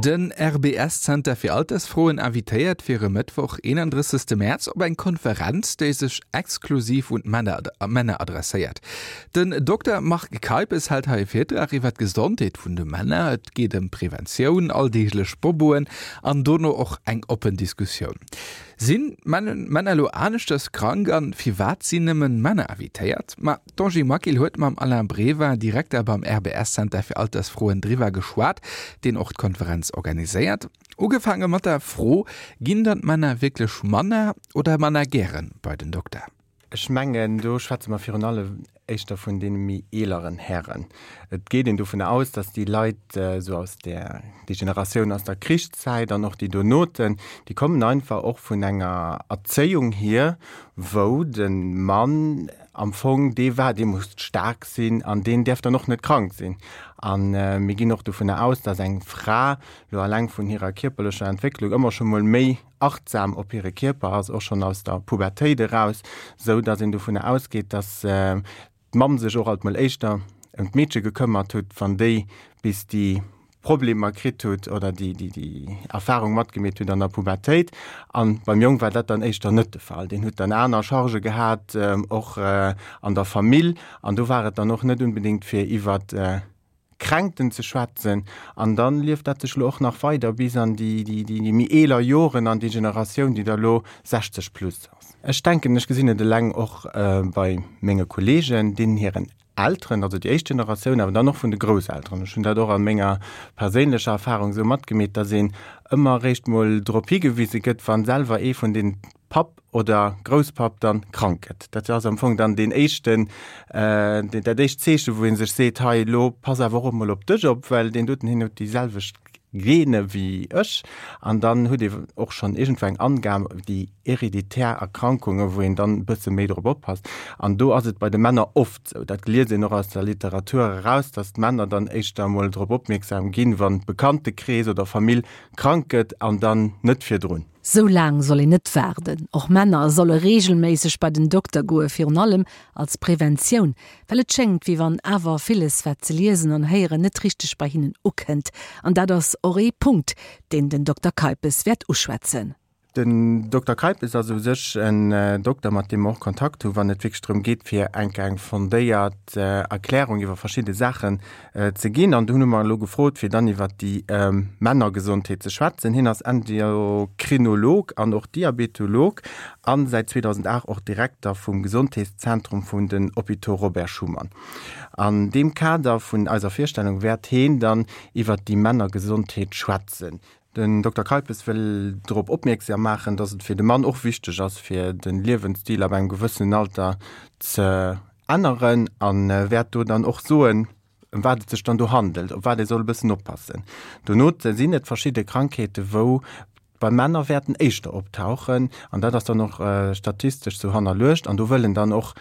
Den RBS-Zenter fir Altersfroen invitéiert fir e Mëttwoch, 31 Mäerz op eng Konferenz, déi sech exklusiv un d'Männer adresséiert. Den Dokter Marc Keipes hält hei e Virtrag iwwer d'Gesondheet vun de Männer. Et geet ëm Preventioun, alldeeglech Boboen an dono och eng oppen Diskussioun. Sinn d'Männer elo aneschters krank an firwat sinn nëmmen Männer invitéiert? Ma d'Angie Maquil huet mam Alain Brever, Direkter beim RBS-Center fir Altersfroen driwwer geschwat, deen och d'Konferenz organiséiert. Ugefaange mat der Fro, Ginn dann d'Männer wierklech manner oder manner gären bei den Dokter? Ech mengen, do schwätze mer virun allem éischter vun deene méi eeleren Hären. Et geet een dovun aus, datt déi Leit esou aus där, déi Generatioun aus der Krichszäit an och déi donoten, déi kommen einfach och vun enger Erzéiung hier, wou de Mann am Fong dee war, dee muss staark sinn an deen däerf dann och net krank sinn. A mir ginn och dovunner aus, datt eng Fra lo alleng vun hirer kierperlecher Entwécklung ëmmer scho mol méi achtsam op hire Kierper ass, och schonn aus der Pubertéit eraus, sou datt een dovunner ausgeet, datt d'Mamm sech och alt mol éischter ëm d'Meedche gekëmmert hutt, wann déi bis déi Problemer kritt hutt oder déi déi Erfahrung matgemeet hutt an der Pubertéit. A beim Jong war dat dann éischter net de Fall. Deen hutt dann aner Chargë gehat, och an der Famill, an do war et dann och net unbedéngt fir iwwert Kränkten ze schwätzen. An dann lieft dat sech elo och nach weider bis an déi méi eeler Joren, an déi Generatioun, déi da lo 60 plus ass. Ech denken, ech gesinn et eleng och bei menge Kollegen, deenen hiren Elteren, also déi éischt Generatioun, awer dann och vun de Grousselteren. Ech hunn dat och a menger perséinlecher Erfahrung esou matgemeet, dass een ëmmer eréischt mol drop higewise gëtt, wann selwer ee vun den Papp oder Grousspapp dann krank gëtt. Dat ass am Fong dann deen éischten, dat éischt Zeechen, wou ee sech seet, hei elo pass awer och emol op dech op, well deen doten hien huet déi selwecht Gene wéi ech. An dann huet ee och schonn iergendwou eng Angam, déi hereditär Erkrankunge wou een dann e bësse méi drop oppasst. An do ass et bei de Männer oft esou, dat liest een och aus der Literatur eraus, datt d'Männer dann éischter emol drop opmierksam ginn, wann Bekanntekrees oder Famill krank gëtt an dann net virdrun. Sou laang soll een net waarden. Och Männer solle reegelméisseg bei den Dokter goe, virun allem als Preventioun, well et schéngt, wéi wann awer villes, wat se liesen an héieren, net richteg bei hinnen ukënnt. An dat ass och ee Punkt, deen den Dokter Keipes wäert uschwätzen. Den Dokter Keipes ass u sech en Dokter, mat deem mer och Kontakt hu wann et wierklech drëm geet, fir enk eng fondéiert Erklärung iwwer verschidde Saachen ze ginn. An do hunn mer elo gefrot, fir dann iwwer déi Männergesondheet ze schwätzen. Hien ass Endokrinolog an och Diabetolog a säit 2008 och Direkter vum Gesondheetszentrum vun den Hôpitaux Robert Schuman. An deem Kader vun eiser Virstellung wäert heen dann iwwer déi Männergesondheet schwätzen. Den Dokter Keipes wëll drop opmierksam maachen, datt et fir de Mann och wichteg ass, fir de Liewensstil ab engem gewëssenen Alter ze änneren a wäert do dann och soen, ëm wat et sech dann do handelt, op wat ee soll e bëssen oppassen. Dono sinn et verschidde Krankheete wou bei Männer wäerten éischter optauchen an dat ass dann och statistesch sou hannerluecht an do wëll en dann och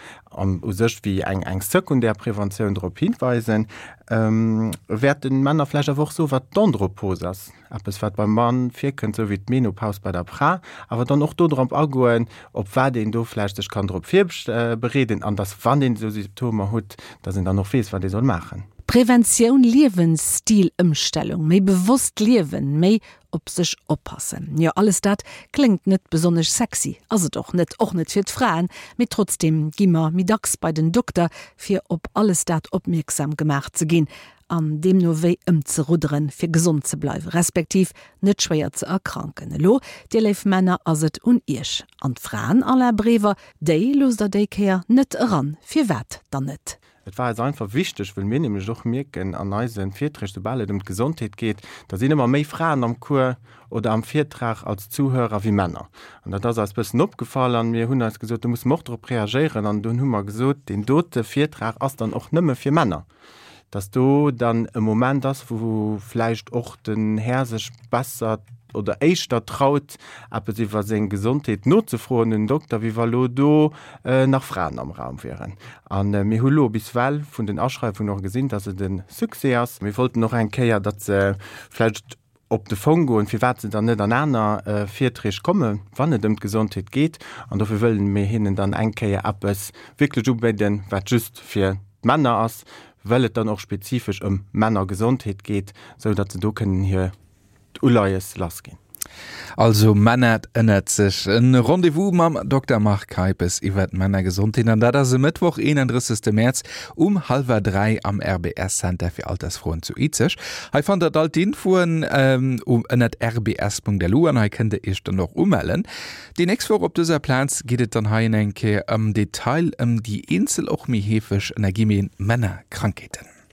u sech wéi eng eng sekundär Preventioun drop hinweisen. Wäert de Männer vläicht awer och soen, wat d'Andropos ass, eppes wat beim Mann virkënnt, sou wéi d'Menopause bei der Fra, awer dann och do drop agoen, op wat een do vläicht sech kann drop virbereeden an dass, wann een esou Symptomer hutt, dass een dann och weess, wat ee soll maachen. Preventioun, Liewensstilëmstellung, méi bewosst liewen, méi op sech oppassen. Jo, alles dat kléngt net besonnesch sexy, ass et och net, och net fir d'Fraen, mee trotzdeem gi mer méi dacks bei den Dokter, fir op alles dat opmierksam gemaach ze ginn an deemno wéi ëmzerudderen, fir gesond ze bleiwen, respektiv net schwéier ze erkranken. Elo, dir léif Männer, ass et un iech. An d'Fraen, Alain Brever, déi loosst der déi Kéier net eran. Firwat dann net? Et war eis einfach wichteg, wëll mir nämlech och mierken an eise Virträg, soubal et ëm d'Gesondheet geet, da sinn ëmmer méi Fraen am Cours oder am Virtrag als Zuhörer wéi Männer. An dat ass eis bëssen opgefall an mir hunn eis gesot, do musse mer och drop reagéieren. An dunn hu mer gesot, deen dote Virtrag ass dann och nëmme fir Männer, dass do dann e Moment ass, wou vläicht och den Här sech besser oder éischter traut, eppes iwwer seng Gesondheet nozefroen un den Dokter, wéi wa lo do nach Fraen am Raum wieren. A mir hu lo bis well vun den Aschreiwungen och gesinn, dass et e Succès ass. Mir wollten och eng Kéier, datt se vläicht op de Fong goen, firwat se dann net an aner Virträg kommen, wann et ëm d'Gesondheet geet. An dofir wëllen mir hinnen dann eng Kéier eppes wierklech ubidden, wat just fir d'Männer ass, well et dann och spezifesch ëm Männergesondheet geet, sou datt se do kënnen hir. d'Uleies lassginn. Also Männer ënnert sech. En Rendez-vous mam Dokter Marc Keipes iwwer d'Männergesondheet an dat ass e Mëttwoch, 31. Mäerz um hallwer 3 am RBS Center fir Altersfroen zu Izeg. Hei fannt der all d'Infoen ënnert rbs.lu an hei kënnt der iech dann och umellen. Déi nächst Woch op dëser Plaz geet et dann hei eng Kéier am Detail ëm déi eenzel och méi heefeg, ënner Guillemeten, Männerkrankheeten.